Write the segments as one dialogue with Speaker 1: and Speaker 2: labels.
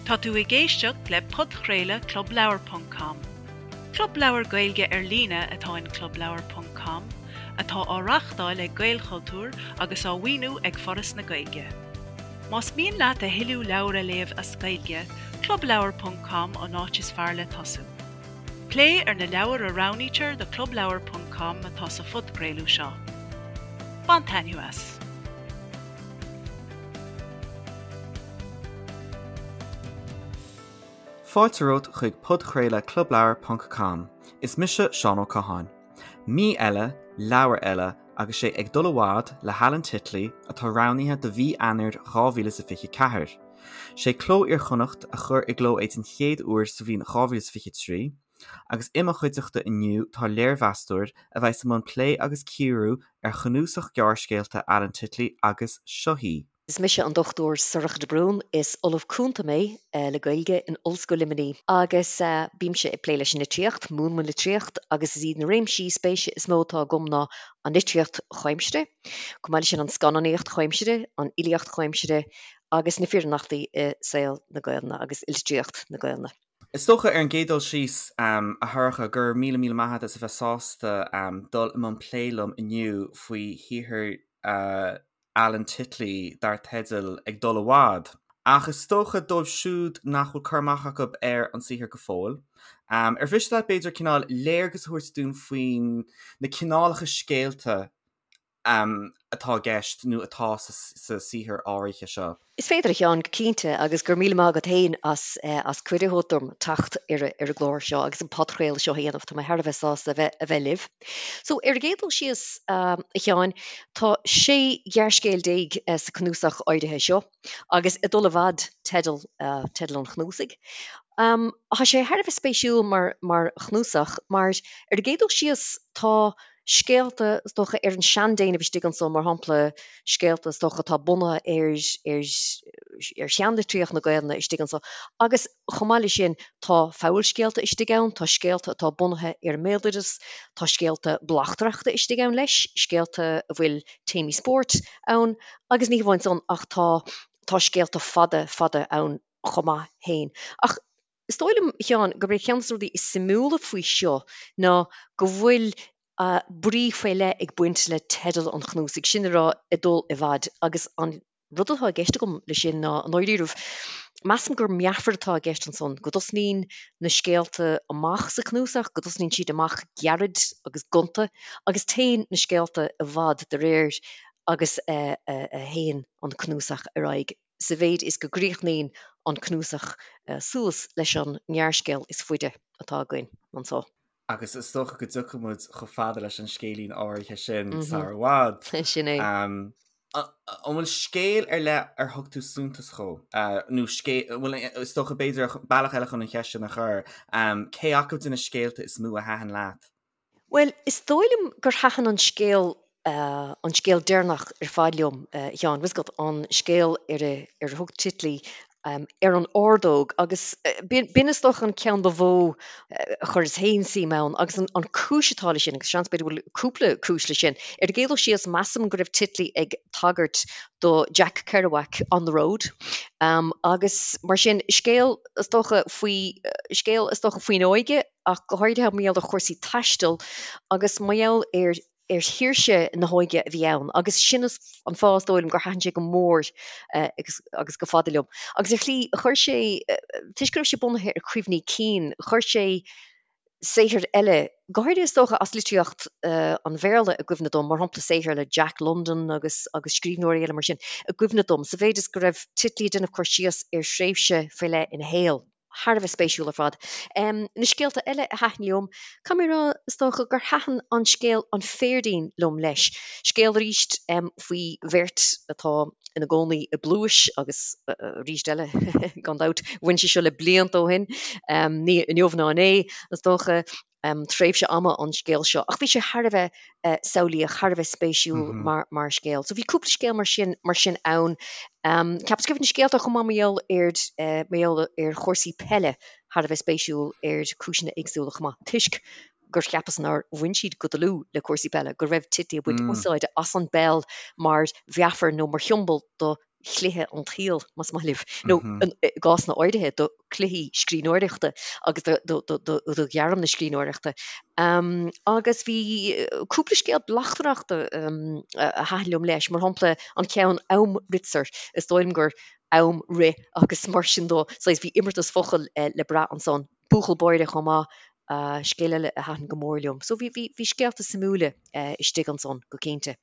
Speaker 1: Tá tú ag éisteacht le podchraoladh Club Leabhar ponc com. Club leabhar Gaeilge ar líne atá in Club Leabhar ponc com, atá á reáchtáil ag Gaelchultúr agus á mhaoiniú ag Foras na Gaeilge. Más mian leat a thuilleadh leabhar a léamh as Gaeilge, Club Leabhar ponc com an áit is fearr le tosú. Plé ar na leabhair a roghnaítear do Club Leabhar ponc com atá sa phodchraoladh seo. Bain taitneamh as!
Speaker 2: Fáilte romhat chuig podchraoladh Club Leabhar ponc com. Is mise Seán Ó Catháin. Mí eile, leabhar eile agus sé Ag Dul i bhFad le hAlan Titley atá roghnaithe do mhí Eanáir 2024. Sé Cló Iar-Chonnacht a chuir i gcló é den chéad uair sa bhliain 2023 agus i mo chuideachta inniu tá léirmheastóir a bheas i mbun plé agus cíoradh ar chnuasach gearrscéalta Alan Titley agus seo í.
Speaker 3: Is mise an Dr Sorcha de Brún, is Ollamh Cúnta mé le Gaeilge in Ollscoil Luimnigh agus bímse ag plé leis an litríocht, múinim an litríocht agus is iad na réimsí spéise is mó atá agam ná an litríocht chomhaimseartha, chomh maith leis sin an scannánaíocht chomhaimseartha, an fhilíocht chomhaimseartha agus na fírinneachtaí i saol na Gaelainne agus i litríocht na Gaelainne.
Speaker 2: Is dócha, ar an gcéad dul síos, a Shorcha, go raibh míle míle maith agat as a bheith sásta dul i mbun plé liom inniu faoi shaothar Alan Titley dar teideal Ag Dul i bhFad. Ach is dócha, dóibh siúd nach bhfuil cur amach acu ar an saothar go fóill, ar mhiste leat, b'fhéidir, cineál léargas a thabhairt dúinn faoin na cineálacha scéalta atá i gceist nó atá sa saothar áirithe seo.
Speaker 3: Is féidir, a Sheáin, go cinnte, agus go raibh míle maith agat féin as as cuireadh a thabhairt dom teacht ar ar an gclár seo agus an podchraoladh seo a dhéanamh. Tá mé thar a bheith sásta a bheith a bheith libh. So, ar an gcéad dul síos, a Sheáin, tá 16 ghearrscéal sa cnuasach áirithe seo, agus Ag Dul i bhFad teideal teideal an chnuasaigh. Tá sé thar a bheith spéisiúil mar mar chnuasach mar ar an gcéad dul síos tá scéalta, is dócha, ar an seandéanamh istigh anso, mar shampla, scéalta, is dócha, atá bunaithe ar, ar, ar sheanlitríocht na Gaelainne istigh anso. Agus chomh maith leis sin, tá fabhalscéalta istigh ann, tá scéalta atá bunaithe ar an mbéaloideas, tá scéalta bleachtaireachta istigh ann leis, scéalta a bhfuil téamaí spóirt ann, agus ní hamháin san ach tá, tá scéalta fada, fada ann chomh maith féin. Ach Is dóigh liom, a Sheáin, gurb é ceann de na rudaí is suimiúla faoi seo ná go bhfuil brí faoi leith ag baint le teideal an chnuasaigh, sin le rá Ag Dul i bhFad, agus an rud atá i gceist agam leis sin ná, i ndáiríribh, measaim gur meafar atá i gceist ansan, go dtosnaíonn na scéalta amach sa chnuasach, go dtosnaíonn siad amach gairid agus gonta, agus téann na scéalta i bhfad de réir agus a théann an cnuasach ar aghaidh. sa mhéid is go gcríochnaíonn an cnuasach suas leis an ngearrscéal is faide atá againn anso.
Speaker 2: Agus is dócha go dtiocfaidh muid chomh fada leis an scéilín áirithe sin sar i bhfad.
Speaker 3: Sin é.
Speaker 2: An bhfuil scéal ar leith ar thug tú suntas dhó? Nó scéal, bhuel, is dócha b'fhéidir bealach eile chun an cheist sin a chur, cé acu de na scéalta is mó a thaitin leat?
Speaker 3: Bhuel, is dóigh liom gur thaitin an scéal, an scéal deireanach ar fad liom, a Sheáin, bhfuil 'fhios agat, an scéal ar a, ar a thug Titley Ar an Ordóg, agus b'in is dócha an ceann ba mhó a chuireas féin suim ann, agus an, an cúis atá leis sin, agus seans b'fhéidir go bhfuil cúpla cúis leis sin, ar an gcéad dul síos, measaim go raibh Titley ag tagairt do Jack Kerouac, On the Road, agus mar sin, scéal is dócha faoi, scéal is dócha faoin óige, ach go háirithe mar gheall ar chúrsaí taistil agus mar gheall ar ar shaoirse na hóige a bhí ann agus sin an fáth is dóigh liom gur thaitin sé go mór agus agus go fada liom. Agus ar shlí chuir sé, toisc go raibh sé bunaithe ar chuimhní cinn, chuir sé saothair eile, go háirithe is dócha as litríocht an Bhéarla i gcuimhne dom, mar shampla saothair le Jack London agus agus scríbhneoirí eile mar sin, i gcuimhne dom, sa mhéid is go raibh Titley ag déanamh cur síos ar thréimhse faoi leith ina shaol. Thar a bheith spéisiúil ar fad. Na scéalta eile a thaitin liom, caithfidh mé a rá, is dócha gur thaitin an scéal An Phéirdín liom leis. Scéal arís faoi bheirt atá ina gcónaí i bpluais agus arís eile, gan dabht, bhain sé seo le blianta ó shin, ní inniu ná inné, is dócha. tréimhse ama an scéal seo ach bhí sé thar a bheith samhlaíoch, thar a bheith spéisiúil mar mar scéal. So bhí cúpla scéal mar sin mar sin ann. Ceapas go raibh na scéalta chomh maith mar gheall ar mar gheall ar chúrsaí peile thar a bheith spéisiúil ar chúiseanna éagsúla chomh maith toisc gur cheapas nár bhain siad go dlúth le cúrsaí peile, go raibh Titley ag baint úsáide as an bpeil mar mheafar nó mar shiombail do chluiche an tsaoil, más maith libh, nó i gcásanna áirithe do chluichí scríbhneoireachta agus do ghairm na scríbhneoireachta. Agus bhí cúpla scéal bleachtaireachta a thaitin liom leis, mar shampla an ceann Amritsar, is dóigh liom gur am rith agus mar sin dó, saghas bhí imeartas focal le brath ansan. Buachaill Báire chomh maith, scéal eile a thaitin go mór liom. So bhí bhí scéalta suimiúla istigh ansan, go cinnte.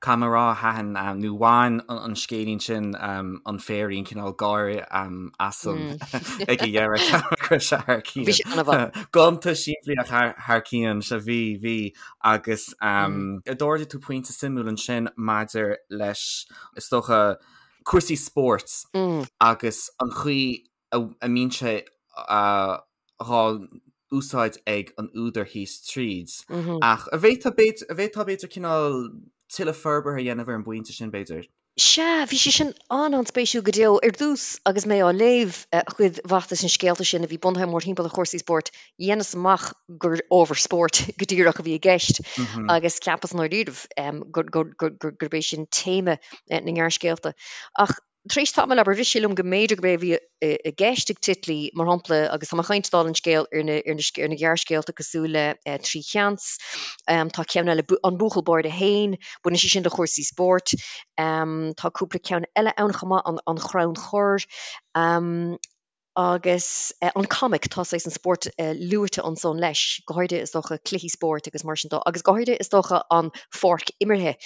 Speaker 2: Caithfidh mé a rá, thaitin, nó bhain an scéilín sin an féirín cineál gáire asam ag a dheireadh, ceapaim go raibh sé thar cionn.
Speaker 3: Bhí sé an-mhaith.
Speaker 2: Gonta simplí ach thar cionn, sea bhí, bhí. Agus d'ardaigh tú pointe suimiúil ansin maidir leis, is dócha, cúrsaí spóirt agus an chaoi a mbíonn sé dhá úsáid ag an údar thíos tríd. Ach an bhféadfá b'fhéidir cineál tuilleadh forbartha a dhéanamh ar an bpointe sin, b'fhéidir?
Speaker 3: Sea, bhí sé sin an-an-spéisiúil go deo. Ar dtús, agus mé á léamh cuid mhaith de na scéalta sin a bhí bunaithe mórthimpeall ar chúrsaí spóirt, dheineas amach gur ábhar spóirt go díreach a bhí i gceist agus cheapas i ndáiríribh gurb é sin téama na ngearrscéalta. Ach Tar éis tamaill, abair, rith sé liom go mb'fhéidir gurb é a bhí i gceist ag Titley, mar shampla, agus tá mé ag caint dála an scéil ar na, ar na, ar na gearrscéalta cosúil le 'Trí Sheans', tá ceann eile, 'An Buachaill Báire Féin', baineann sé sin le chúrsaí spóirt. Tá cúpla ceann eile ann chomh maith, 'An Chrann Chorr'. Agus an comic, tá saghas an spórt luaite ansan leis, go háirithe is dócha cluichí spóirt agus mar sin dó, agus go háirithe is dócha an pháirc imeartha.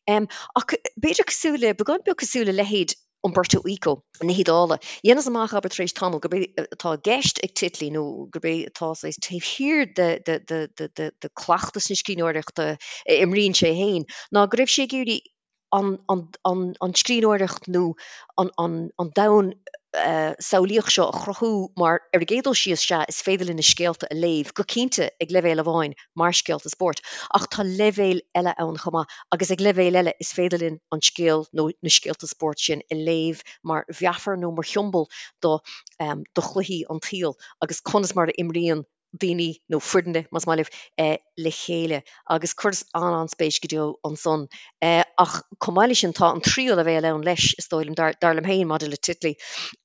Speaker 3: Ach b'fhéidir cosúil le, beagán beag cosúil le leithéid Umberto Eco na hIodáile, dheineas amach, abair, tar éis tamaill, gurb é atá i gceist ag Titley nó gurb é atá saghas taobh thiar de, de, de, de, de, de cleachtas na scríbhneoireachta a imríonn sé féin, ná go raibh sé ag iarraidh an scríbhneoireacht nó an domhan samhlaíoch seo a chruthú mar, ar an gcéad dul síos, sea, is féidir linn na scéalta a léamh, go cinnte, ag leibhéal amháin, mar scéalta spóirt, ach tá leibhéil eile ann chomh maith, agus ag leibhéal eile is féidir linn an scéal nó na scéalta spóirt sin a léamh mar mheafar nó mar shiombail do do chluichí an tsaoil agus conas mar a imríonn daoine, nó foirne, más maith libh, le chéile agus chuireas an-an-spéis go deo ansan. Ach chomh maith leis sin, tá an tríú leibhéal ann leis, is dóigh liom, dar liom féin, maidir le Titley.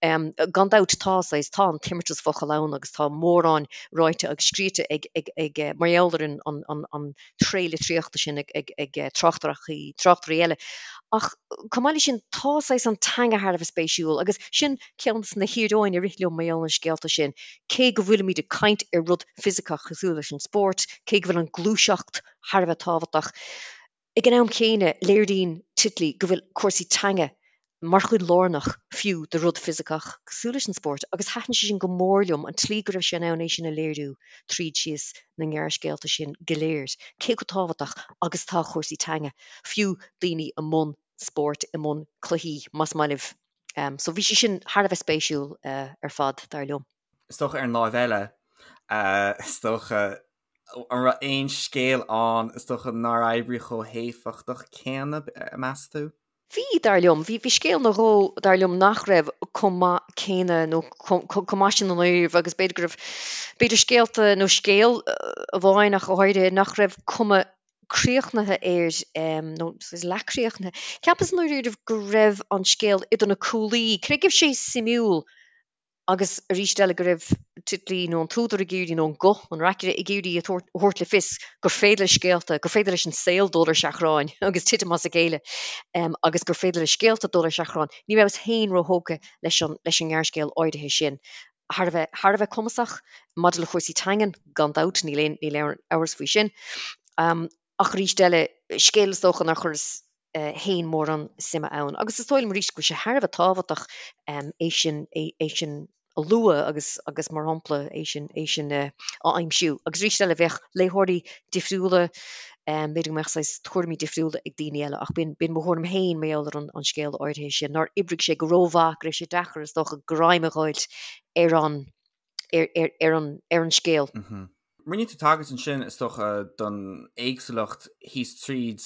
Speaker 3: Gan dabht, tá saghas, tá an t-imeartas focal ann agus tá mórán ráite agus scríte ag, ag, ag, mar gheall ar an, an, an, an tréith litríochta sin ag, ag, ag tráchtaireachtaí, tráchtairí eile. Ach chomh maith leis sin, tá saghas an teanga thar a bheith spéisiúil agus sin ceann de na híoróin a rith liom mar gheall ar na scéalta sin. Cé go bhfuilimid ag caint ar rud fisiceach cosúil leis an spórt, cé go bhfuil an gluaiseacht thar a bheith tábhachtach, ag an am céanna léiríonn Titley go bhfuil cúrsaí teanga mar chuid lárnach fiú de rud fisiceach cosúil leis an spórt agus thaitin sé sin go mór liom, an tslí go raibh sé in ann é sin a léiriú tríd síos na ngearrscéalta sin go léir, cé chomh tábhachtach agus atá cúrsaí teanga, fiú daoine i mbun spóirt, i mbun cluichí, más maith libh. So bhí sé sin thar a bheith spéisiúil ar fad, dar liom.
Speaker 2: Is dócha ar an láimh eile, is dócha, an raibh aon scéal ann, is dócha, nár oibrigh chomh héifeachtach céanna, meas tú?
Speaker 3: Bhí, dar liom. Bhí, bhí scéal nó dhó, dar liom, nach raibh chomh maith céanna nó chomh maith sin i ndáiríribh agus b'fhéidir go raibh, b'fhéidir scéalta nó scéal amháin ach go háirithe, nach raibh cuma críochnaithe air, nó leathchríochnaithe. Cheapas i ndáiríribh go raibh an scéal idir na cuaillí, cé go raibh sé suimiúil agus arís eile go raibh Titley nó an t-údar ag iarraidh, nó an guth, an reacaire, ag iarraidh a thabhairt le fios gur féidir le scéalta, gur féidir leis an saol dul ar seachrán agus titim as a chéile agus gur féidir le scéalta dul ar seachrán. Ní rabhas féin róthógtha leis an ngearrscéal áirithe sin. Thar a bheith, thar a bheith cumasach maidir le cúrsaí teangan, gan dabht, níl aon, níl aon amhras faoi sin. Ach arís eile, scéal is dócha nár chuireas féin mórán suime ann. Agus is dóigh liom arís go bhfuil sé thar a bheith tábhachtach é sin, é sin a lua agus, agus mar shampla, é sin, é sin a aimsiú. Agus arís eile, bheadh léitheoirí difriúla B'fhéidir go mbeadh saghas tuairimí difriúla ag daoine eile ach b'in mo thuairim féin mar gheall ar an scéal áirithe sin, nár oibrigh sé go rómhaith, go raibh sé deacair is dócha greim a dh'fháilt ar an ar an ar an scéal.
Speaker 2: Rinne tú tagairt ansin is dócha don éagsúlacht thíos tríd.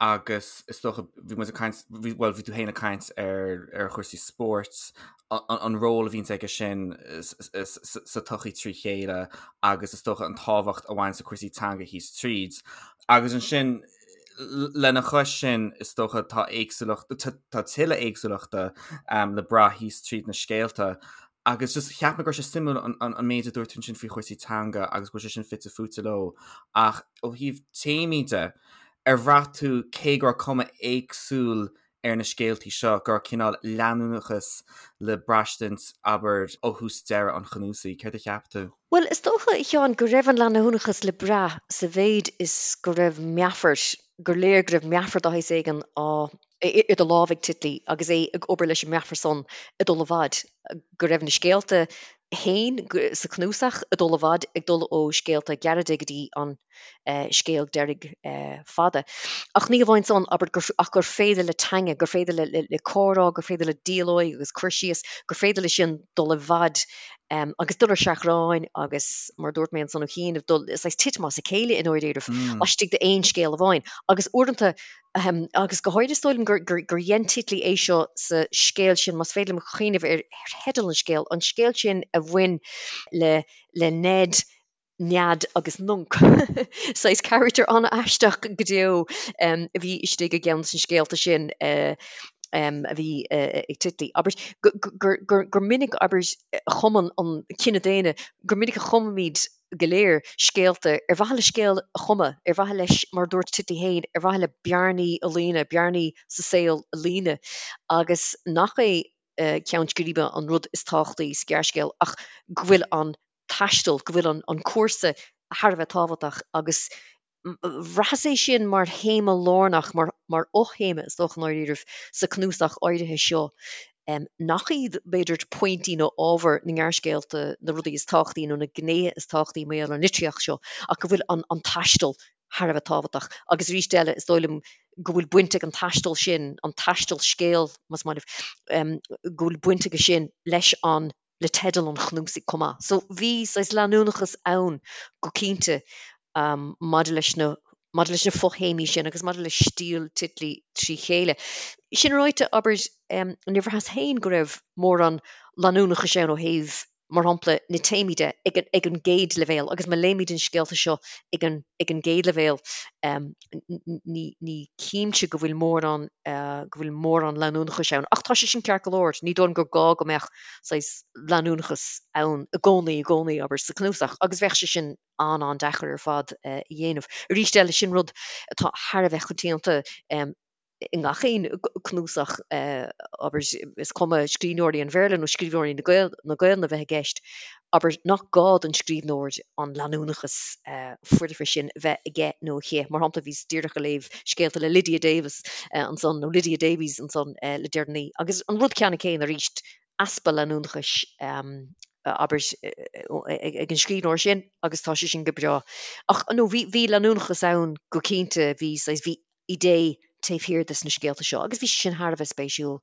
Speaker 2: Agus is dócha, bhí muid ag caint, bhí, bhuel, bhí tú féin ag caint ar, ar chúrsaí spóirt, an ról a bhíonns aige sin sa tsochaí trí chéile agus is dócha an tábhacht a bhaineanns le cúrsaí teanga thíos tríd. Agus ansin, lena chois sin, is dócha tá éagsúlacht, tá tuilleadh éagsúlachta le brath thíos tríd na scéalta. Agus just cheap mé go raibh sé suimiúil an méid a dúirt tú ansin faoi chúrsaí teanga agus go bhfuil sé sin fite fuaite leo. Ach ó thaobh téamaí de, Ar bhraith tú, cé go raibh cuma éagsúil ar na scéaltaí seo, go raibh cineál leanúnachas le braistint, abair, ó thús deireadh an chnuasaigh? Céard a cheap tú?
Speaker 3: Bhuel, is dócha, a Sheáin, go raibh an leanúnachas le brath sa mhéid is go raibh meafar, gur léir go raibh meafar de shaghas éigin á, idir lámha ag Titley agus é ag obair leis an meafar san ag dul i bhfad, go raibh na scéalta féin sa chnuasach ag dul i bhfad, ag dul ó scéalta gearra go dtí an scéal deiridh fada. Ach ní hamháin san, abair, ach gur féidir le teanga, gur féidir le comhrá, gur féidir le dialóig agus cur síos, gur féidir leis sin dul i bhfad agus dul ar seachrán agus, mar a dúirt mé ansan ó chianaibh, dul, saghas titim as a chéile i ndáiríribh, laistigh d'aon scéal amháin. Agus uaireanta, agus go háirithe is dóigh liom gur dhein Titley é seo sa scéal sin, más féidir liom cuimhneamh ar theideal an scéil, an scéal sin a bhain le le Ned, Nead agus Nunc. Saghas carachtar an-aisteach go deo a bhí istigh i gceann de na scéalta sin a bhí ag Titley. Abair gur minic, abair, a chumann an cine daonna, gur minic a chumaimid go léir scéalta ar mhaithe le scéal a chumadh, ar mhaithe leis, mar a dúirt Titley féin, ar mhaithe le bearnaí a líonadh, bearnaí sa saol a líonadh agus nach é ceann scríbe an rud is tábhachtaí sa ghearrscéal ach go bhfuil an taisteal, go bhfuil an cúrsa thar a bheith tábhachtach agus bhraitheas é sin mar théama lárnach, mar fhothéama is dócha i ndáiríribh, sa cnuasach áirithe seo, nach iad, b'fhéidir, pointí nó ábhar na ngearrscéalta na rudaí is tábhachtaí nó na gnéithe is tábhachtaí mar gheall ar an litríocht seo, ach go bhfuil an taisteal thar a bheith tábhachtach. Agus arís eile, is dóigh liom go bhfuil baint ag an taisteal sin, an taisteal scéil, más maith libh, go bhfuil baint aige sin leis an le teideal an chnuasaigh chomh maith. So bhí saghas leanúnachas ann go cinnte maidir leis na maidir leis na fothéamaí sin agus maidir le stíl Titley trí chéile. Sin ráite, abair, níor bhraitheas féin go raibh mórán leanúnachais ann ó thaobh, mar shampla, na téamaí de ag an ag an gcéad leibhéal agus má léimid an scéalta seo ag an ag an gcéad leibhéal ní ní chímse go bhfuil mórán go bhfuil mórán leanúnachais ann. Ach tá sé sin ceart go leor, ní dóigh liom gur gá go mbeadh saghas leanúnachas ann i gcónaí, i gcónaí, abair, sa chnuasach, agus bheadh sé sin an-an-deacair ar fad a dhéanamh. Arís eile, sin rud atá thar a bheith coitianta i ngach aon cnuasach, abair, is cuma scríbhneoirí an Bhéarla nó scríbhneoirí na Gaelainne a bheith i gceist, abair, nach gá don scríbhneoir an leanúnachas foirfe sin a bheith aige nó aici. Mar shampla, bhíos díreach ag léamh scéalta le Lydia Davis ansan, nó Lydia Davies ansan le deireanaí, agus an rud ceannann céanna arís, easpa leanúnachais, abair, ag an scríbhneoir sin agus tá sé sin go breá. Ach no, bhí, bhí leanúnachas ann go cinnte, bhí saghas, bhí idé taobh thiar de sna scéalta seo agus bhí sé sin thar a bheith spéisiúil.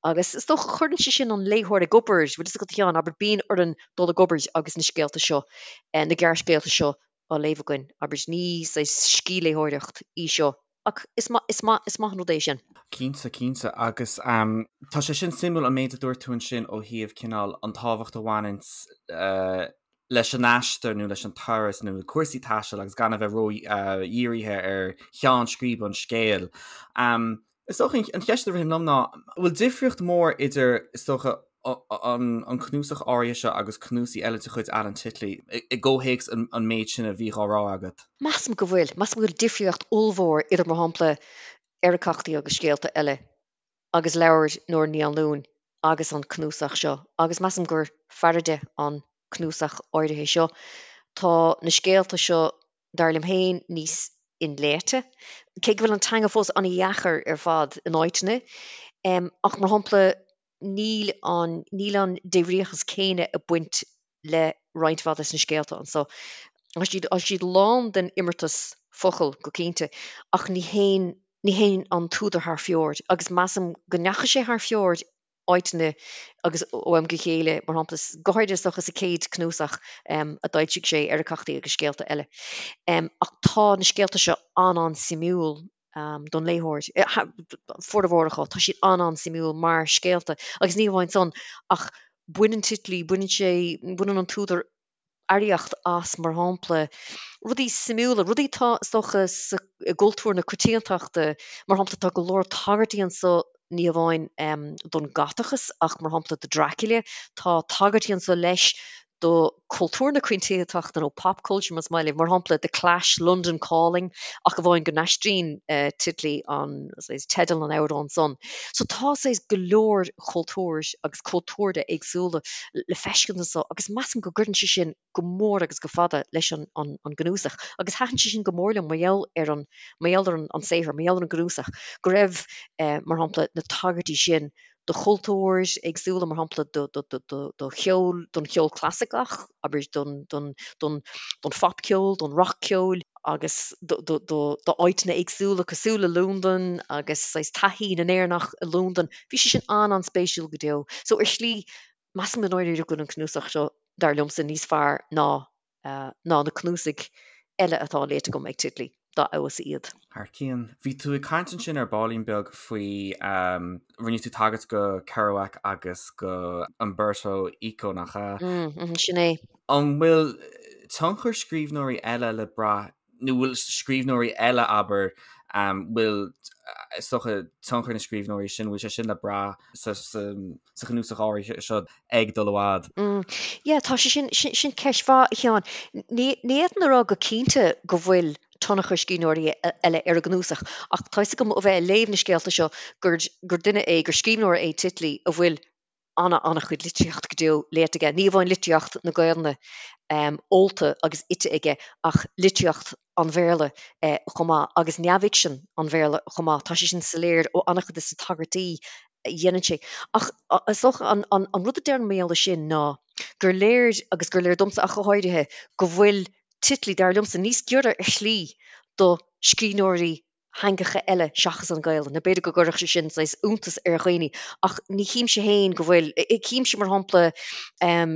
Speaker 3: Agus is dócha, cuireann sé sin an léitheoir ag obair, bhfuil fhios agat a Sheáin, abair, bíonn orainn dul ag obair agus na scéalta seo, na gearrscéalta seo á léamh againn, abair, ní saghas scíthléitheoireacht í seo ach is maith, is maith, is maith an rud é sin.
Speaker 2: Cinnte, cinnte. Agus tá sé sin suimiúil an méid a dúirt tú ansin ó thaobh cineál an tábhacht a bhaineanns leis an aistear nó leis an turas nó le cúrsaí taistil agus gan a bheith ró-dhírithe ar cheann scríbe an scéil. Is dócha an cheist a ritheann liom ná, an bhfuil difríocht mhór idir, is dócha, an cnuasach áirithe seo agus cnuasaigh eile de chuid Alan Titley, i gcomhthéacs an méid sin a bhí á rá agat?
Speaker 3: Measaim go bhfuil. Measaim go bhfuil difríocht ollmhór idir, mar shampla, Eiriceachtaí agus Scéalta Eile agus leabhar Nóra Ní Anluain agus an cnuasach seo, agus measaim gur fearrde an cnuasach áirithe seo. Tá na scéalta seo, dar liom féin, níos inléite, cé go bhfuil an teanga fós an-dheacair ar fad in áiteanna. Ach, mar shampla, níl an, níl an débhríochas céanna ag baint le roinnt mhaith des na scéalta anso. Tá siad, tá siad lán den imeartas focal, go cinnte, ach ní théann, ní théann an t-údar thar fóir, agus measaim go ndeachaigh sé thar fóir áiteanna agus ó am go chéile, mar shampla, go háirithe is dócha sa chéad cnuasach a d'fhoilsigh sé, Eiriceachtaí agus Scéalta Eile. Ach tá na scéalta seo an-an-suimiúil. don léitheoir. Formhór acu, tá siad an-an-suimiúil mar scéalta agus ní hamháin san ach baineann Titley, baineann sé, baineann an t-údar earraíocht as, mar shampla, rudaí suimiúla, rudaí atá, is dócha, sa, i gcultúr na coitiantachta, mar shampla, tá go leor tagairtí anso ní hamháin don Ghotachas ach, mar shampla, do Dracula, tá tagairtí anso leis do chultúr na coitiantachta nó pop culture más maith libh, mar shampla The Clash, London Calling, ach amháin go n-aistríonn Titley an, saghas, teideal an amhráin san. So tá saghas go leor cultúir agus cultúrtha éagsúla le feiscint anso agus measaim go gcuireann sé sin go mór agus go fada leis an an gcnuasach agus thaitin sé sin go mór liom mar gheall ar an mar gheall ar an saothar, mar gheall ar an gcnuasach, go raibh, mar shampla, na tagairtí sin do chultúir éagsúla, mar shampla do cheol, don cheol clasaiceach, abair don phopcheol, don rac-cheol, agus d'áiteanna éagsúla cosúil le Londain agus saghas taithí na nÉireannach i Londain. Bhí sé sin an-an-spéisiúil go deo. So ar shlí, measaim i ndáiríre go bhfuil an cnuasach seo, dar liomsa, níos fearr ná ná na cnuasaigh eile atá léite agam ag Titley, dá fheabhas
Speaker 2: iad. Thar cionn. Bhí tú ag caint ansin ar baillín beag faoi, rinne tú tagairt go Kerouac agus go Umberto Eco, nach
Speaker 3: ea? Mm, sin é.
Speaker 2: An bhfuil tionchar scríbhneoirí eile le brath nó bhfuil scríbhneoirí eile, abair, bhfuil, is dócha, tionchar na scríbhneoirí sin, bhfuil sé sin le brath sa chnuasach áirithe seo ag dul i bhfad?
Speaker 3: Yeah, tá sé sin, sin ceist mhaith, a Sheáin. Ní fhéadfainn a rá go cinnte go bhfuil tionchar scríbhneoirí eile ar an gcnuasach, ach tá 'fhios agam ó bheith ag léamh na scéalta seo gur duine é, gur scríbhneoir é Titley a bhfuil ana-an-chuid litríocht go deo léite aige, ní amháin litríocht na Gaelainne ólta agus ite aige ach litríocht an Bhéarla chomh maith agus neamhfhicsean an Bhéarla chomh maith. Tá sé sin soiléir ó an-chuid de na tagairtí a dhéanann sé. Ach is dócha an rud a déarfainn mar gheall air sin ná gur léir, agus gur léir domsa ach go háirithe, go bhfuil Titley, dar liomsa, níos giorra ar shlí do scríbhneoirí theangacha eile seachas an Ghaelainn. Nó b'fhéidir go gcuirfeadh sé sin saghas iontas ar dhaoine, ach ní chímse féin go bhfuil, címse mar shampla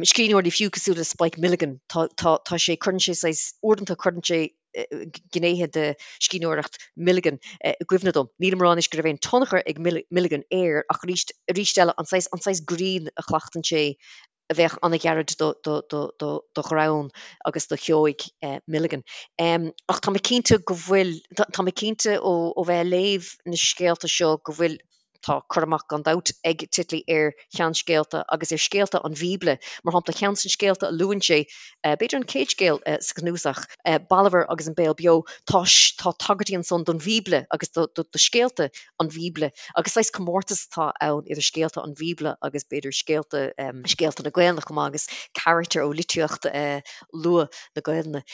Speaker 3: scríbhneoirí fiú cosúil le Spike Milligan, tá, tá, tá sé, cuireann sé saghas, uaireanta cuireann sé gnéithe de scríbhneoireacht Milligan i gcuimhne dom. Nílim ag rá anois go raibh aon tionchar ag Milligan air ach arís, arís eile an saghas, an saghas grinn a chleachtann sé a bheadh an-ghairid do ghreann agus do sheoigh Milligan. Ach tá mé cinnte go bhfuil, tá mé cinnte ó bheith ag léamh na scéalta seo go bhfuil, tá cur amach gan dabht ag Titley ar sheanscéalta agus ar scéalta an Bhíobla. Mar shampla, ceann de na scéalta a luann sé, b'fhéidir an chéad scéal sa chnuasach, Balbhar agus an Béal Beo, tá tá tagairtí ansan don Bhíobla agus do scéalta an Bhíobla, agus saghas comórtas atá ann idir scéalta an Bhíobla agus b'fhéidir scéalta, scéalta na Gaelainne chomh maith agus carachtair ó litríocht luath na Gaelainne.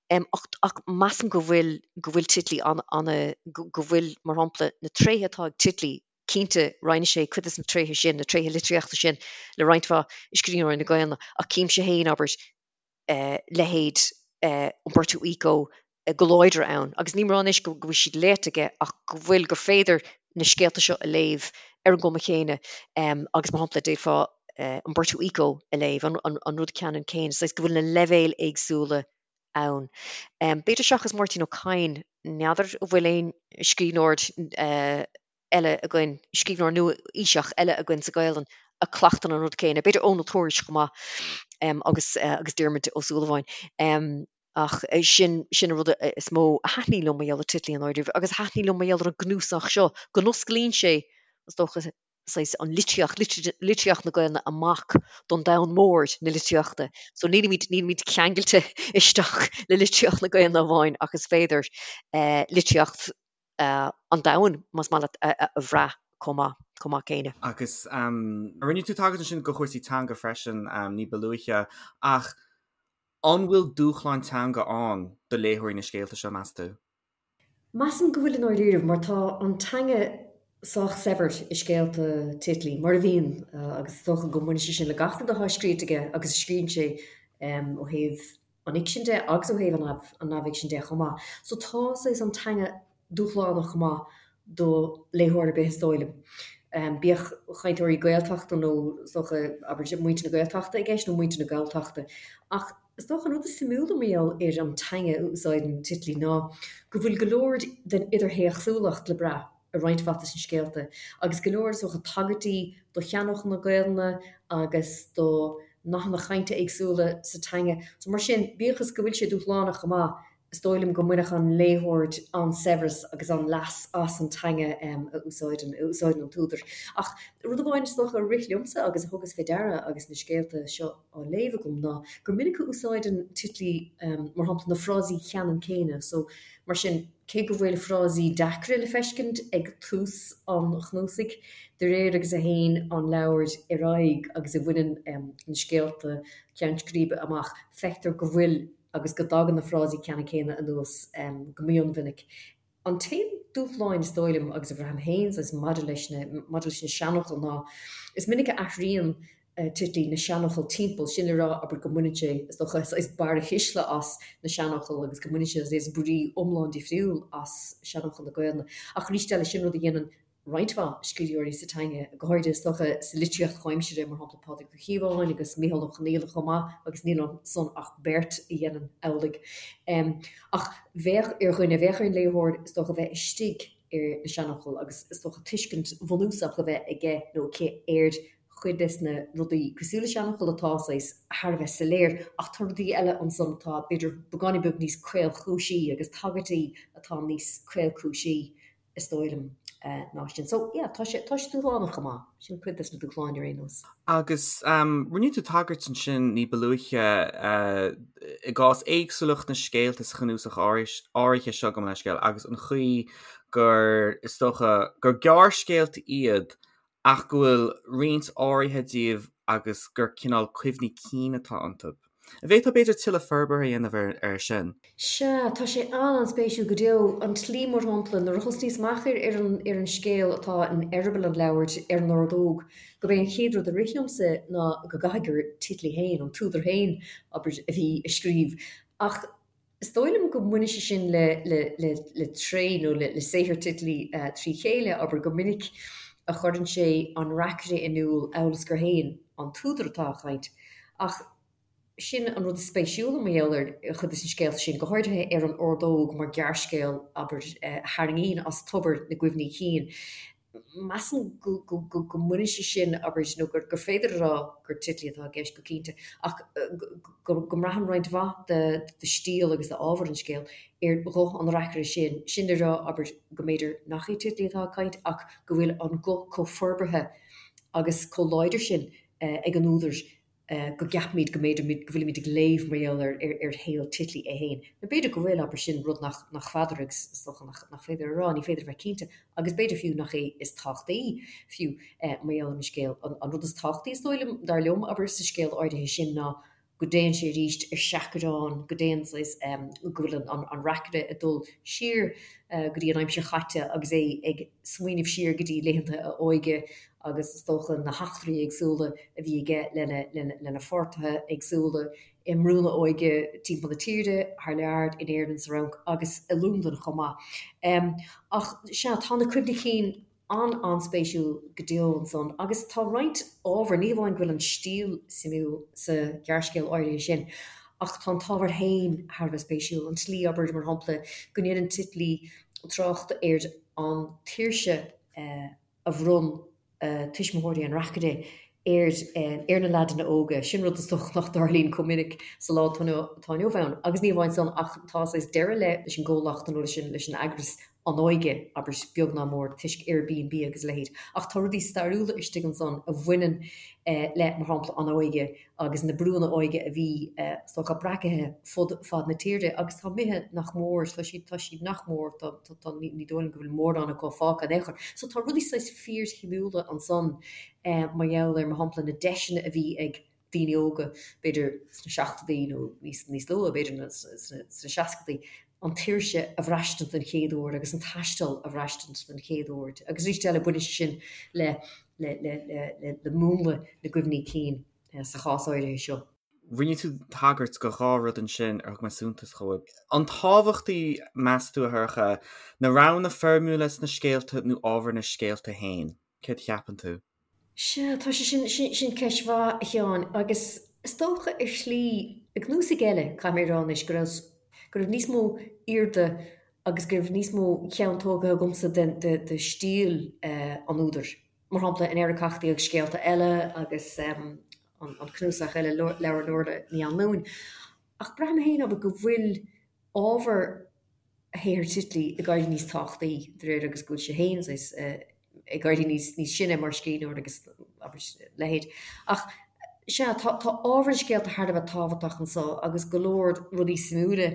Speaker 3: Ach, ach measaim go bhfuil, go bhfuil Titley an, an, go bhfuil, mar shampla, na tréithe atá ag Titley, cinnte roinneann sé cuid de na tréithe sin, na tréithe litríochta sin le roinnt mhaith scríbhneoirí na Gaelainne, ach címse féin, abair, leithéid Umberto Eco go láidir ann. Agus nílim ag rá anois go bhfuil siad léite aige ach go bhfuil, gur féidir na scéalta seo a léamh ar an gcuma chéanna agus mar shampla d'fhéadfá Umberto Eco a léamh, an rud ceannann céanna, saghas go bhfuil na leibhéil éagsúla ann. B'fhéidir seachas Máirtín Ó Cadhain, n'fheadar an bhfuil aon scríbhneoir eile againn, scríbhneoir nua-aoiseach eile againn sa Ghaelainn a chleachtann an rud céanna, b'fhéidir Eoin Ó Tuairisg chomh maith agus agus Diarmuid Ó Súilleabháin. Ach sin sin an rud is mó a thaitníonn liom mar gheall ar Titley i ndáiríre agus a thaitníonn liom mar gheall ar an gcnuasach seo, go n-osclaíonn sé, is dócha, saghas an litríocht, litríocht na Gaelainne amach don domhan mór na litríochta. So nílimid, nílimid ceangailte isteach le litríocht na Gaelainne amháin ach is féidir litríocht an domhain, más maith leat, a bhrath chomh maith, chomh maith céanna.
Speaker 2: Agus rinne tú tagairt ansin go chúrsaí teanga freisin ní ba luaithe, ach an bhfuil dúshlán teanga ann do léitheoirí na scéalta seo, meas tú?
Speaker 3: Measaim go bhfuil i ndáiríribh, mar tá an teanga sách saibhir i scéalta Titley, mar a bhíonn, agus is dócha go mbaineann sé sin le gach rud atá scríte aige agus a scríobhann sé ó thaobh an fhicsin de agus ó thaobh an neamhfhicsin de chomh maith. So tá saghas an teanga dúshlánach chomh maith do léitheoir ar bith is dóigh liom. Bíodh cainteoirí Gaeltachta nó is dócha, abair, muintir na Gaeltachta i gceist nó muintir na Galltachta. Ach. Is dócha an rud is suimiúla mar gheall ar an teanga a úsáideann Titley ná go bhfuil go leor den idirthéacsúlacht le brath i roinnt mhaith de na scéalta, agus go leor, is dócha, tagairtí do sheanfhocail na Gaelainne agus do nathanna cainte éagsúla sa teanga. So mar sin, bíodh is go bhfuil sé dúshlánach go maith, is dóigh liom go mbainfeadh an léitheoir an-saibhreas agus an-leas as an teanga a úsáideann a úsáideann an t-údar. Ach rud amháin is dócha a rith liomsa agus a thugas fé deara agus na scéalta seo á léamh agam ná gur minic a úsáideann Titley mar shampla na frásaí ceannann céanna so mar sin cé go bhfuil frásaí deacra le feiscint ag tús an chnuasaigh, de réir agus a théann an leabhar ar aghaidh agus a bhaineann na scéalta ceann scríbe amach, feictear go bhfuil agus go dtagann na frásaí ceannann céanna anuas go mionmhinic. An t-aon dúshláin is dóigh liom, agus a bhraithim féin saghas maidir leis na, maidir leis na seanfhocail ná is minic a athraíonn Titley na seanfhocail timpeall, sin le rá, abair, go mbaineann sé, is dócha, saghas barrathuisle as na seanfhocail agus go mbaineann sé saghas brí iomlán difriúil as seanfhocail na Gaelainne. Ach arís eile, sin rud a dhéanann roinnt mhaith scríbhneoirí sa teanga, go háirithe is dócha sa litríocht chomhaimseartha, mar shampla Pádraig Ó Cíobháin agus Micheál Ó Conghaile chomh maith, agus níl ansan ach beirt a dhéanann amhlaidh. Ach bheadh ar dhuine, bheadh ar an léitheoir is dócha bheith istigh ar na seanfhocail agus is dócha tuiscint bhunúsach a bheith aige nó aici ar chuid des na rudaí cosúil le seanfhocail atá saghas thar a bheith soiléir ach tá rudaí eile ansan atá b'fhéidir beagáinín beag níos caolchúisí agus tagairtí atá níos caolchúisí is dóigh liom, ná sin. So, yeah, tá sé, tá sé dúshlánach chomh maith. Sin cuid des na dúshláin ar aon nós.
Speaker 2: Agus rinne tú tagairt ansin ní ba luaithe i gcás éagsúlacht na scéalta sa chnuasach áirithe seo gabh mo leithscéal agus an chaoi gur, is dócha, gur gearrscéalta iad ach go bhfuil roinnt áirithe díobh agus gur cineál cuimhní cinn atá iontu. An bhféadfá b'fhéidir tuilleadh forbartha a dhéanamh air sin?
Speaker 3: Sea, tá sé an-an-spéisiúil go deo. An tslí, mar shampla, nuair a thosnaíos amach ar ar an ar an scéal atá in eireaball an leabhair, ar an ordóg, gurb é an chéad rud a rith liomsa ná go gcaithfidh gur Titley féin, an t-údar féin, abair, a bhí ag scríobh. Ach Is dóigh liom go mbaineann sé sin le le tréith nó le saothar Titley trí chéile, abair, gur minic a chuireann sé an reacaire in iúl amhail is gur féin an t-údar atá ag caint. Ach sin an rud is spéisiúla mar gheall ar chuid de na scéalta sin, go háirithe ar an Ordóg mar ghearrscéal, abair, a tharraingíonn as tobar na gcuimhní cinn. Measaim go mbaineann sé sin, abair, nó gur féidir a rá gur Titley atá i gceist go cinnte, ach go mbraitheann roinnt mhaith de stíl agus d'ábhar an scéil ar ghuth an reacaire sin, sin le rá, abair, go mb'fhéidir nach é Titley atá ag caint ach go bhfuil an guth chomh forbartha agus chomh láidir sin ag an údar go gceapaimid go mb'fhéidir go bhfuilimid ag léamh mar gheall ar ar shaol Titley é féin. Nó b'fhéidir go bhfuil, abair, sin rud nach nach bhfeadar agus is dócha nach nach féidir a rá, ní féidir a bheith cinnte, agus b'fhéidir fiú nach é is tábhachtaí fiú mar gheall ar an scéal. An an rud is tábhachtaí is dóigh liom, dar liom, abair, sa scéal áirithe sin ná go dtéann sé arís ar seachrán, go dtéann saghas go bhfuil an an reacaire ag dul siar go dtí an aimsir chaite agus é ag smaoineamh siar go dtí laethanta a óige agus is dócha na heachtraí éagsúla a bhí aige lena pháirtithe éagsúla i mbrúnna óige timpeall na tíre, thar lear, in Éirinn, sa Fhrainc agus i Londain chomh maith. Ach sea, tá na cuimhní cinn an-an-spéisiúil go deo ansan agus tá roinnt ábhar, ní hamháin go bhfuil an stíl suimiúil sa ghearrscéal áirithe sin, ach tá an t-ábhar féin thar a bheith spéisiúil, an tslí, abair, mar shampla, go ndéanann Titley trácht ar an tsaoirse a bhronn tuismitheoirí an reacaire ar ar na leaideanna óga. Sin rud is dócha nach dtarlaíonn chomh minic sa lá atá inniu ann. Agus ní amháin san ach tá saghas deireadh le leis an gcomhlacht nó leis an leis an eagras An Óige, abair, beag ná mór, toisc Airbnb agus a leithéid. Ach tá rudaí stairiúla istigh ansan a bhaineann le, mar shampla, an óige agus na brúnna óige a bhí, is dócha, breacaithe fud fad na tíre agus tá imithe nach mór, tá siad, tá siad nach mór, tá, tá, tá, ní dóigh liom go bhfuil mórán acu fágtha in aon chor. So tá rudaí saghas fíorshuimiúla ansan mar gheall ar, mar shampla, na deiseanna a bhí ag daoine óga, b'fhéidir sna seachtóidí nó níos, níos luaithe, b'fhéidir sna, sna seascadaí, an tsaoirse a bhraistint den chéad uair agus an taisteal a bhraistint den chéad uair. Agus arís eile, baineann sé sin le, le, le, le, le múnla na gcuimhní cinn sa chás áirithe seo.
Speaker 2: Rinne tú tagairt do dhá rud ansin ar thug mé suntas dhóibh. An tábhachtaí, meas tú, a Shorcha, na roghanna foirmiúla sna scéalta nó ábhar na scéalta féin? Céard a cheapann tú?
Speaker 3: Sea, tá sé sin, sin ceist mhaith, a Sheáin, agus. Is dócha ar shlí, i gcnuasaigh eile, caithfidh mé a rá anois, go raibh, go raibh níos mó airde agus go raibh níos mó ceann tógtha agamsa de, de, de stíl an údair. Mar shampla, in Eiriceachtaí agus Scéalta Eile agus an, an cnuasach eile, Leabhar Nuala Ní Anluain. Ach braithim féin, abair, go bhfuil ábhar shaothar Titley ag éirí níos tábhachtaí de réir agus go bhfuil sé féin saghas ag éirí níos níos sine mar scríbhneoir agus abair leithéid. Ach sea, tá tá ábhar na scéalta thar a bheith tábhachtach anso agus go leor rudaí suimiúla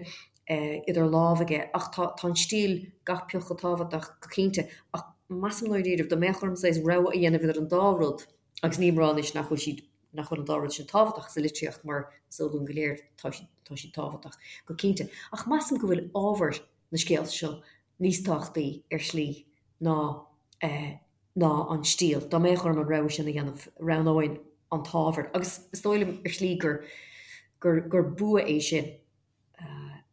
Speaker 3: idir lámha aige ach tá tá an stíl gach pioc chomh tábhachtach go cinnte. Ach measaim ndáiríre dá mbeadh orm saghas rogha a dhéanamh idir an dá rud agus nílim ag rá anois nach bhfuil siad nach bhfuil an dá rud sin tábhachtach sa litríocht mar is eol dúinn go léir tá siad, tá siad tábhachtach go cinnte. Ach measaim go bhfuil ábhar na scéalta seo níos tábhachtaí ar shlí ná eh, ná an stíl. Dá mbeadh orm an rogha sin a dhéanamh, roghnóinn an t-ábhar. Agus is dóigh liom ar shlí gur, gur, gur bua é sin.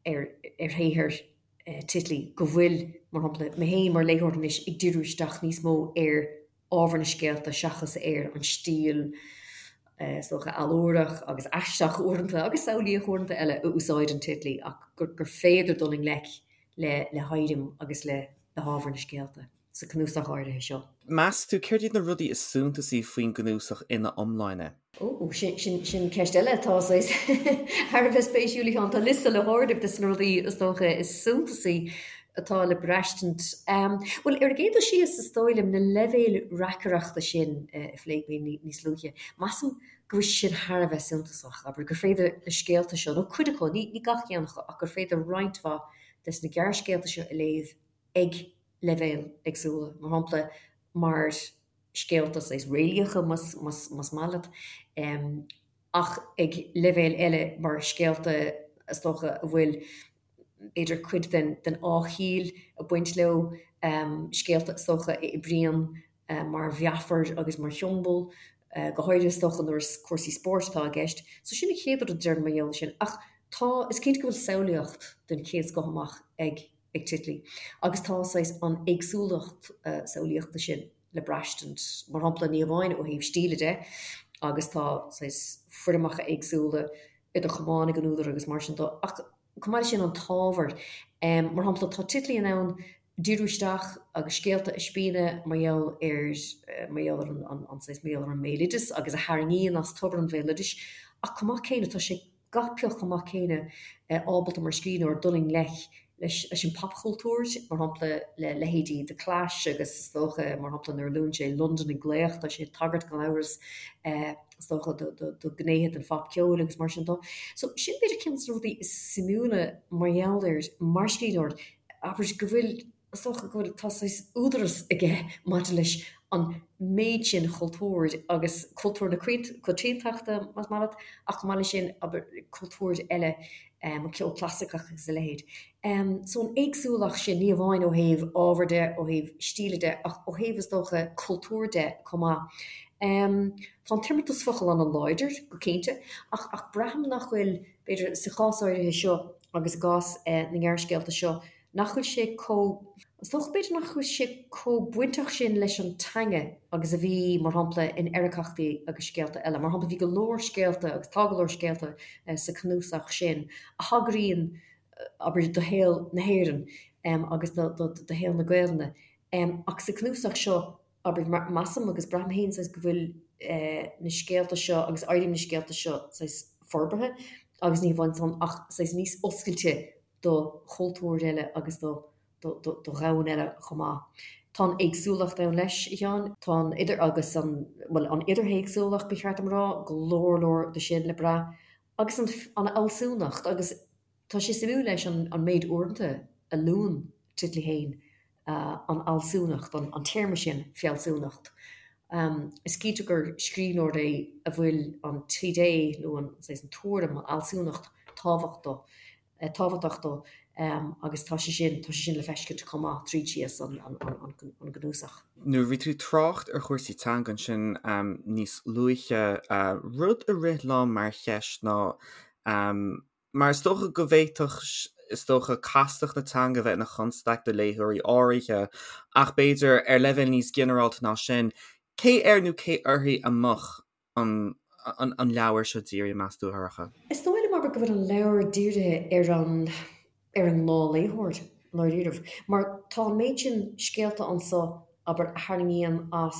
Speaker 3: ar shaothar Titley go bhfuil, mar shampla, mé féin mar léitheoir anois ag díriú isteach níos mó ar ábhar na scéalta seachas ar an stíl, is dócha, allúrach agus aisteach uaireanta agus samhlaíoch uaireanta eile a úsáideann Titley ach gur féidir dul i ngleic le héirim agus le hábhar na scéalta. sa cnuasach áirithe seo.
Speaker 2: Meas tú, céard iad na rudaí is suntasaí faoin gcnuasach ina iomláine?
Speaker 3: Ó, sin, sin, sin ceist eile atá saghas thar a bheith spéisiúil, a Sheáin. Tá liosta le háireamh de na rudaí is dócha is suntasaí atá le braistint. Bhuel, ar an gcéad dul síos, is dóigh liom, na leibhéil reacaireachta sin a phléigh mé níos luaithe, measaim go bhfuil sé sin thar a bheith suntasach, abair, gur féidir na scéalta seo, nó cuid acu, ní, ní gach ceann acu, ach gur féidir roinnt mhaith des na gearrscéalta seo a léamh ag leibhéil éagsúla, mar shampla, mar scéalta saghas réalaíocha, más maith leat, ach ag leibhéal eile mar scéalta, is dócha, a bhfuil, b'fhéidir, cuid den fháthchiall ag baint leo, scéalta, is dócha, a oibríonn mar mheafar agus mar shiombail, go háirithe, is dócha, nuair is cúrsaí spóirt atá i gceist. So sin an chéad rud a déarfainn mar gheall air sin. Ach tá, is cinnte go bhfuil samhlaíocht den chéad scoth amach ag. ag Titley. Agus tá saghas an éagsúlacht samhlaíochta sin le braistint, mar shampla, ní hamháin ó thaobh stíle de, agus tá saghas foirmeacha éagsúla idir chamáin ag an údar agus mar sin de, ach chomh maith leis sin an t-ábhar. Mar shampla, tá Titley in ann díriú isteach agus scéalta a spíonadh mar gheall ar, mar gheall ar an, an saghas, mar gheall ar an mbéaloideas agus a tharraingíonn as tobar an bhéaloidis, ach chomh maith céanna tá sé gach pioc chomh maith céanna ábalta mar scríbhneoir dul i ngleic leis an popchultúr, mar shampla le leithéidí The Clash agus is dócha, mar shampla, nuair a luann sé Londain ag glaoch, tá sé ag tagairt gan amhras is dócha do ghnéithe den phopcheol agus mar sin de. So sin b'fhéidir ceann de na rudaí is suimiúla mar gheall air mar scríbhneoir, abair go bhfuil Is dócha go bhfuil, tá saghas údaras aige maidir leis an méid sin cultúir agus cultúr na coitiantachta, más maith leat, ach chomh maith leis sin, abair, cultúir eile, an ceol clasaiceach agus a leithéid. So an éagsúlacht sin, ní amháin ó thaobh ábhair de, ó thaobh stíle de, ach ó thaobh, is dócha, cultúir de chomh maith. Tá an t-imeartas focal an-láidir, go cinnte, ach ach braithim nach bhfuil, b'fhéidir, sa chás áirithe seo agus i gcás na ngearrscéalta seo, nach bhfuil sé chomh, is dócha b'fhéidir nach bhfuil sé chomh bainteach sin leis an teanga agus a bhí, mar shampla, in Eiriceachtaí agus Scéalta Eile. Mar shampla, bhí go leor scéalta, agus tá go leor scéalta sa chnuasach sin, a thagraíonn, abair, do shaol na hÉireann agus do shaol na Gaelainne. Ach sa chnuasach seo, abair, measaim agus braithim féin saghas go bhfuil na scéalta seo agus éirim na scéalta seo saghas forbartha agus ní hamháin san ach saghas níos oscailte do chultúir eile agus do dhomhan eile chomh maith. Tá an éagsúlacht ann leis, a Sheáin. Tá an idir agus an, bhuel, an idirthéacsúlacht, ba cheart dom a rá, go leor leor de sin le brath. Agus an an fhealsúnacht agus tá sé suimiúil leis an an méid uaireanta a luann Titley féin an fhealsúnacht, an téarma sin, fealsúnacht. Is cinnte gur scríbhneoir é a bhfuil an t-idé nó an saghas an tuairim, an fhealsúnacht tábhacht dó, tábhachtach dó agus tá sé sin, tá sé sin le feiscint chomh maith tríd síos an gcnuasach.
Speaker 2: Nuair a bhí tú ag trácht ar chúrsaí teanga ansin níos luaithe, rud a rith liom mar cheist ná, Mar is dócha go bhféadfadh, is dócha, castacht na teanga bheith ina chonstaic do léitheoirí áirithe, ach b'fhéidir, ar leibhéal níos ginearálta ná sin, cé air nó cé uirthi a mbeadh an an leabhar seo dírithe, meas tú, a Shorcha?
Speaker 3: Is dóigh liom, abair, go bhfuil an leabhar dírithe ar an ar an ngnáthléitheoir, i ndáiríribh. Mar tá an méid sin scéalta anso, abair, a tharraingíonn as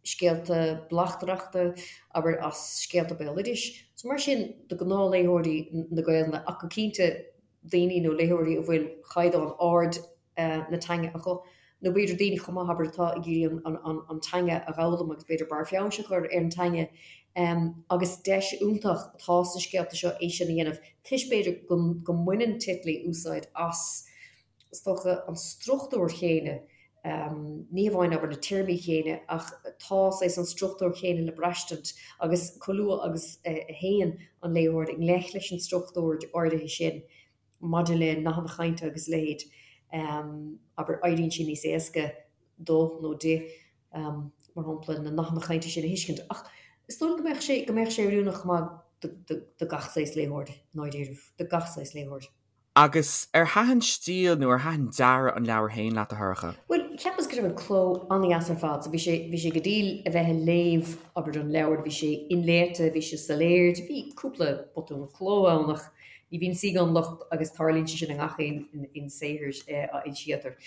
Speaker 3: scéalta bleachtaireachta, abair, as scéalta béaloidis. So mar sin, do ghnáthléitheoirí na Gaelainne, ach go cinnte daoine nó léitheoirí a bhfuil caighdeán ard na teanga acu, nó b'fhéidir daoine chomh maith, abair, atá ag iarraidh an teanga a dh'fhoghlaim agus b'fhéidir barr feabhais a chur ar an teanga. Agus deis iontach atá sna scéalta seo é sin a dhéanamh, toisc b'fhéidir go mbaineann Titley úsáid as, is dócha, an struchtúr chéanna, ní hamháin, abair, na téarmaí chéanna, ach tá saghas an struchtúr chéanna le braistint agus chomh luath agus a théann an léitheoir i ngleic leis an struchtúr áirithe sin, maidir le nathanna cainte agus a leithéid, abair, éiríonn sé níos éasca dó nó di, mar shampla, na nathanna cainte sin a thuiscint. Ach is dóigh liom go mbeadh sé, go mbeadh sé oiriúnach chomh maith do gach saghas léitheoir, i ndáiríribh, do gach saghas léitheoir.
Speaker 2: Agus ar thaitin stíl nó ar thaitin dearadh an leabhair féin leat, a Shorcha?
Speaker 3: Bhuel, cheapas go raibh an cló an-dheas ar fad. So bhí sé, bhí sé go diail a bheith ag léamh, abair, an leabhar, bhí sé inléite, bhí sé soiléir, bhí cúpla botún cló ann ach Ní bhíonn saoi gan locht agus tarlaíonn sé sin i ngach aon saothar a fhoilsítear.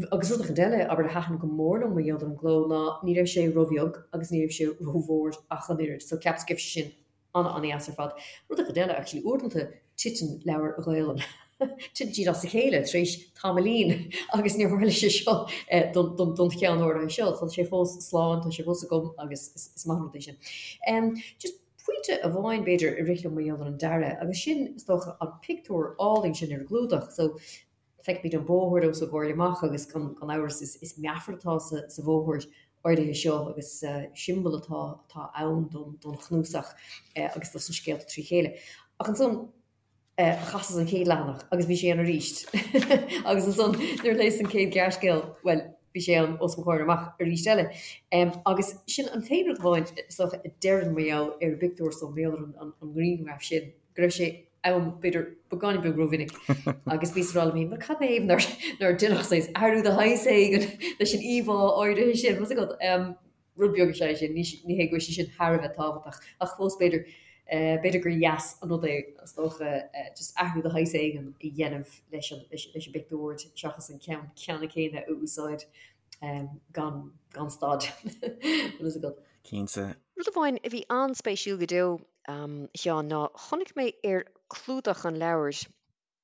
Speaker 3: Agus rud eicínt eile, abair, a thaitin go mór liom mar gheall ar an gcló ná ní raibh sé róbheag agus ní raibh sé rómhór ach an oiread, so cheapas go raibh sé sin an-an-dheas ar fad. Rud eicínt eile, actually, uaireanta titeann leabhair Ghaelainn, titeann siad as a chéile tar éis tamaillín agus níor tharla sé seo don cheann áirithe seo. Tá sé fós slán, tá sé fós agam agus is maith an rud é sin. Just Pointe amháin, b'fhéidir, a rith liom mar gheall ar an dearadh, agus sin, is dócha, an pictiúr álainn sin ar an gclúdach. So, feicimid an bóthar os ár gcomhair amach agus gan amhras is meafar atá sa bhóthar áirithe seo agus siombail atá atá ann don chnuasach agus dos na scéalta trí chéile. Ach ansan, chasas an chéad leathanach agus bhí sé ann arís agus ansan nuair a léas an chéad ghearrscéal, bhuel, bhí sé ann os mo chomhair amach arís eile. Agus sin an t-aon rud amháin, is dócha, a déarfainn mar gheall ar an bpictiúr so, mar gheall ar an ngrianghraf sin, go raibh sé ann, b'fhéidir, beagáinín beag rómhinic agus bhíos ag rá liom féin, bhuel, cad ina thaobh nár, nár deineadh saghas athrú de shaghas éigin leis an íomhá áirithe sin, bhfuil a fhios agat. Rud beag is ea é sin, ní hé go bhfuil sé sin thar a bheith tábhachtach, ach fós b'fhéidir, b'fhéidir gur dheas an rud é, is dócha, just athrú de shaghas éigin a dhéanamh leis an, leis an bpictiúr seachas an ceann ceannann céanna a úsáid gan, gan stad. Bhfuil fhios agat.
Speaker 2: Cinnte.
Speaker 3: Rud amháin a bhí an-spéisiúil go deo, a Sheáin, ná chonaic mé ar chlúdach an leabhair,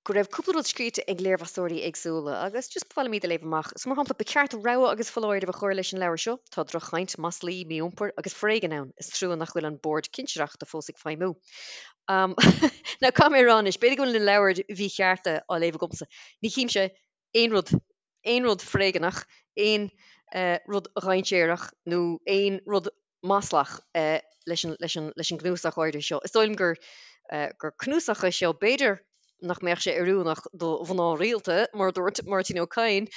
Speaker 3: go raibh cúpla rud scríte ag léirmheastóirí éagsúla agus just ba mhaith liom iad a léamh amach. So mar shampla, ba cheart rabhadh agus foláireamh a chur leis an leabhar seo, tá droch-chaint, maslaí, mí-iompar agus foréigean ann, is trua nach bhfuil an Bord Cinsireachta fós ag feidhmiú. Um, now caithfidh mé a rá anois, b'fhéidir go bhfuil na leabhair mhíchearta á léamh agamsa, ní chímse aon rud, aon rud foréigeanach, aon rud dhainséarach nó aon rud maslach leis an, leis an, leis an gcnuasach áirithe seo. Is dóigh liom gur, gur cnuasach é seo, b'fhéidir nach mbeadh sé oiriúnach do mhná rialta, mar a dúirt Máirtín Ó Cadhain,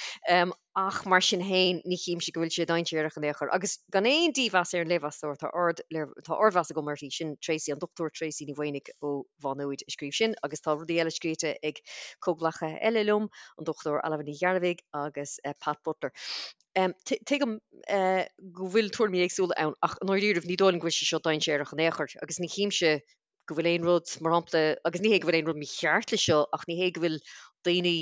Speaker 3: ach mar sin féin ní chímse go bhfuil sé dainséarach in aon chor. Agus gan aon dímheas ar an léirmheastóir, tá ard, tá ardmheas agam uirthi, sin Tracey, an Dr Tracey Ní Mhaonaigh ó Mhá Nuad a scríobh sin, agus tá rudaí eile scríte ag comhghleacaithe eile liom, an Dr Ailbhe Ní Ghearbhuigh agus Pat Butler. Tuigim go bhfuil tuairimí éagsúla ann ach i ndáiríribh ní dóigh liom go bhfuil sé seo dainséarach in aon chor agus ní chímse go bhfuil aon rud, mar shampla, agus ní hé go bhfuil aon rud mícheart leis seo ach ní hé go bhfuil daoine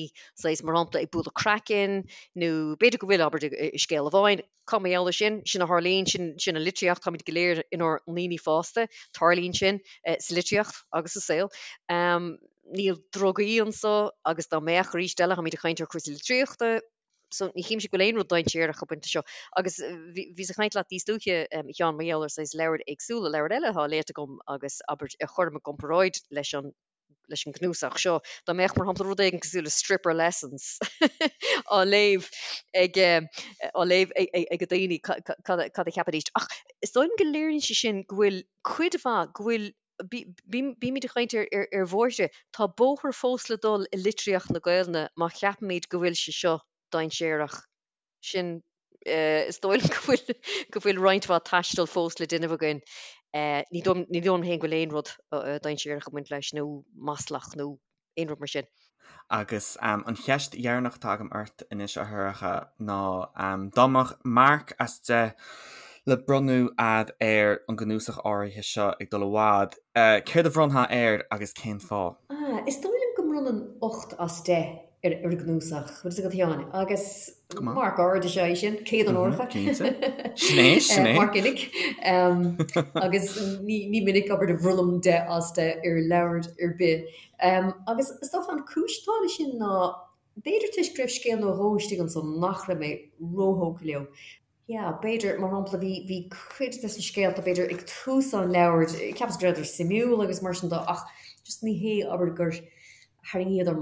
Speaker 3: saghas, mar shampla, ag bualadh craicinn nó b'fhéidir go bhfuil, abair, i scéal amháin, cá mar gheall air sin, sin a tharlaíonn, sin, sin an litríocht, táimid go léir inár ndaoine fásta, tarlaíonn sin sa litríocht agus sa saol. Níl drugaí anso agus dá mbeadh arís eile, táimid ag caint ar chúrsaí litríochta, So ní chímse go bhfuil aon rud dainséarach ag baint leis seo. Agus bhíos ag caint leat níos luaithe, a Sheáin, mar gheall ar saghas leabhair éagsúla, leabhair eile atá léite agam agus abair a chuirim i gcomparáid leis an leis an gcnuasach seo. Dá mbeadh, mar shampla, rud éigin cosúil le Stripper Lessons á léamh ag á léamh ag daoine, cad a cheapfaidís? Ach is dóigh liom go léiríonn sé sin go bhfuil cuid mhaith, go bhfuil Bímid ag caint ar bhóithre. Tá bóthar fós le dul i litríocht na Gaelainne má cheapaimid go bhfuil sé seo dainséarach. Sin, is dóigh liom go bhfuil, go bhfuil roinnt mhaith taistil fós le déanamh againn. Ní dóigh liom féin go bhfuil aon rud dainséarach ag baint leis nó maslach nó aon rud mar sin.
Speaker 2: Agus an cheist dheireanach atá agam ort anois, a Shorcha, ná dá mbeadh marc as 10. le bronnadh a'd ar an gcnuasach áirithe seo Ag Dul i bhFad, céard a bhronnfá air agus cén fáth?
Speaker 3: Ah, is dóigh liom go mbronnfainn 8 as 10 ar an gcnuasach, bhfuil fhios agat a Sheáin, agus marc ard is ea é sin, céadonóracha.
Speaker 2: Cinnte. Sin é, sin é.
Speaker 3: Marc uilig. Agus ní minic, abair, a bhronnaim 10 as 10 ar leabhar ar bith. Agus is dócha an cúis atá leis sin ná, b'fhéidir toisc go raibh scéal nó dhó istigh ansan nach raibh mé róthógtha leo. Yeah, b'fhéidir, mar shampla, bhí, bhí cuid de na scéalta, b'fhéidir, ag tús an leabhair, cheapas go rabhadar suimiúil agus mar sin de ach just ní hé, abair, gur tharraingíodar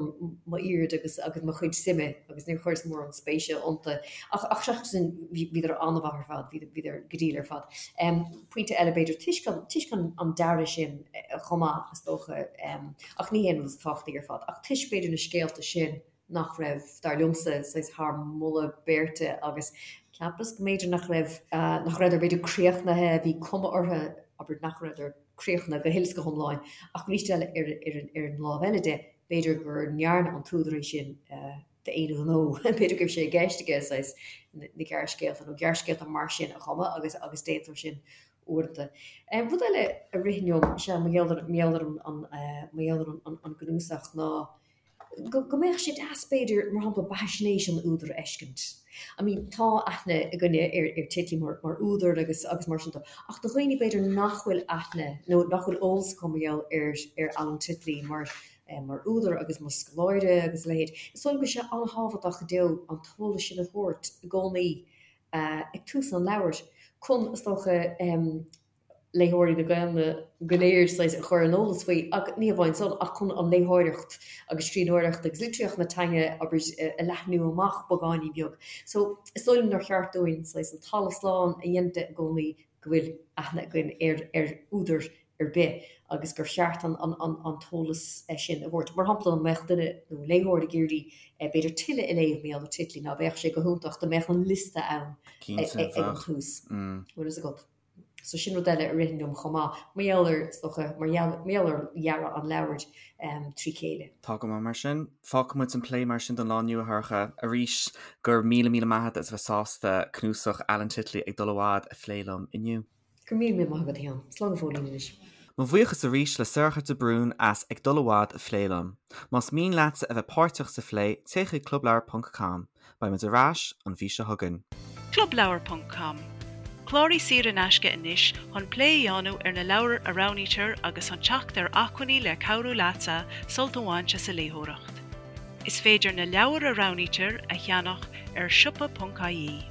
Speaker 3: m'aird agus, agus mo chuid suime agus níor chuireas mórán spéise iontu. Ach, ach seachas sin, bhí, bhíodar an-mhaith ar fad, bhí, bhíodar go diail ar fad. Pointe eile, b'fhéidir, toisc an, toisc an, an dearadh sin chomh maith, is dócha, ach ní hé an rud is tábhachtaí ar fad, ach toisc, b'fhéidir, na scéalta sin, nach raibh, dar liomsa, saghas thar moladh beirte agus cheapas go mb'fhéidir nach raibh, nach rabhadar b'fhéidir críochnaithe, bhí cuma orthu, abair, nach rabhadar críochnaithe go huile is go hiomlán ach arís eile ar, ar, ar an lámh eile de, b'fhéidir gur ndearna an t-údar é sin d'aon ghnó, b'fhéidir go raibh sé i gceist aige saghas na gearrscéalta nó gearrscéalta mar sin a chumadh agus, agus déantar sin uaireanta. Rud eile a ritheann liom, sea, mar gheall ar, mar gheall ar an, mar gheall ar an, an gcnuasach ná, go mbeadh sé deas, b'fhéidir, mar shampla, beathaisnéis an údair a fheiscint. I mean, tá aithne againne ar ar Titley mar mar údar agus agus mar sin de, ach do dhaoine, b'fhéidir, nach bhfuil aithne nó nach bhfuil eolas acu mar gheall ar ar Alan Titley mar mar údar agus mar scoláire agus a leithéid, is dóigh liom go bhfuil sé an-tábhachtach go deo an t-eolas sin a thabhairt i gcónaí ag tús an leabhair chun, is dócha, léitheoirí na Gaelainne go léir saghas a chur ar an eolas faoi, ach ní hamháin san, ach chun an léitheoireacht agus scríbhneoireacht agus litríocht na teanga, abair, a leathnú amach beagáinín beag. So, is dóigh liom nár cheart dúinn saghas an talamh slán a dhéanamh de i gcónaí go bhfuil aithne againn ar ar údar ar bith agus gur cheart an an an an t-eolas sin a thabhairt. Mar shampla, dá mbeadh duine nó léitheoir ag iarraidh b'fhéidir tuilleadh a léamh mar gheall ar Titley, ná beadh sé go hiontach dá mbeadh an liosta ann ag an tús. Bhfuil fhios agat? So sin rud eile a ritheann liom chomh maith, mar gheall ar, is dócha, mar gheall, mar gheall ar dhearadh an leabhair trí chéile.
Speaker 2: Tá go maith mar sin. Fágfaidh muid an plé mar sin don lá inniu, a Shorcha. Arís, go raibh míle míle maith agat as a bheith sásta cnuasach Alan Titley Ag Dul i bhFad a phlé liom inniu.
Speaker 3: Go raibh míle míle maith agat, a Sheáin. Slán go fóillín anois.
Speaker 2: Mo bhuíochas arís le Sorcha de Brún as Ag Dul i bhFad a phlé liom. Más mian leatsa a bheith páirteach sa phlé, téigh chuig clubleabhar ponc com. Beidh muid ar ais an mhí seo chugainn.
Speaker 1: Clubleabhar ponc com, Cláraigh saor in aisce anois chun plé a dhéanamh ar na leabhair a roghnaítear agus chun teacht ar acmhainní le cabhrú leatsa sult a bhaint as an léitheoireacht. Is féidir na leabhair a roghnaítear a cheannach ar siopa.ie.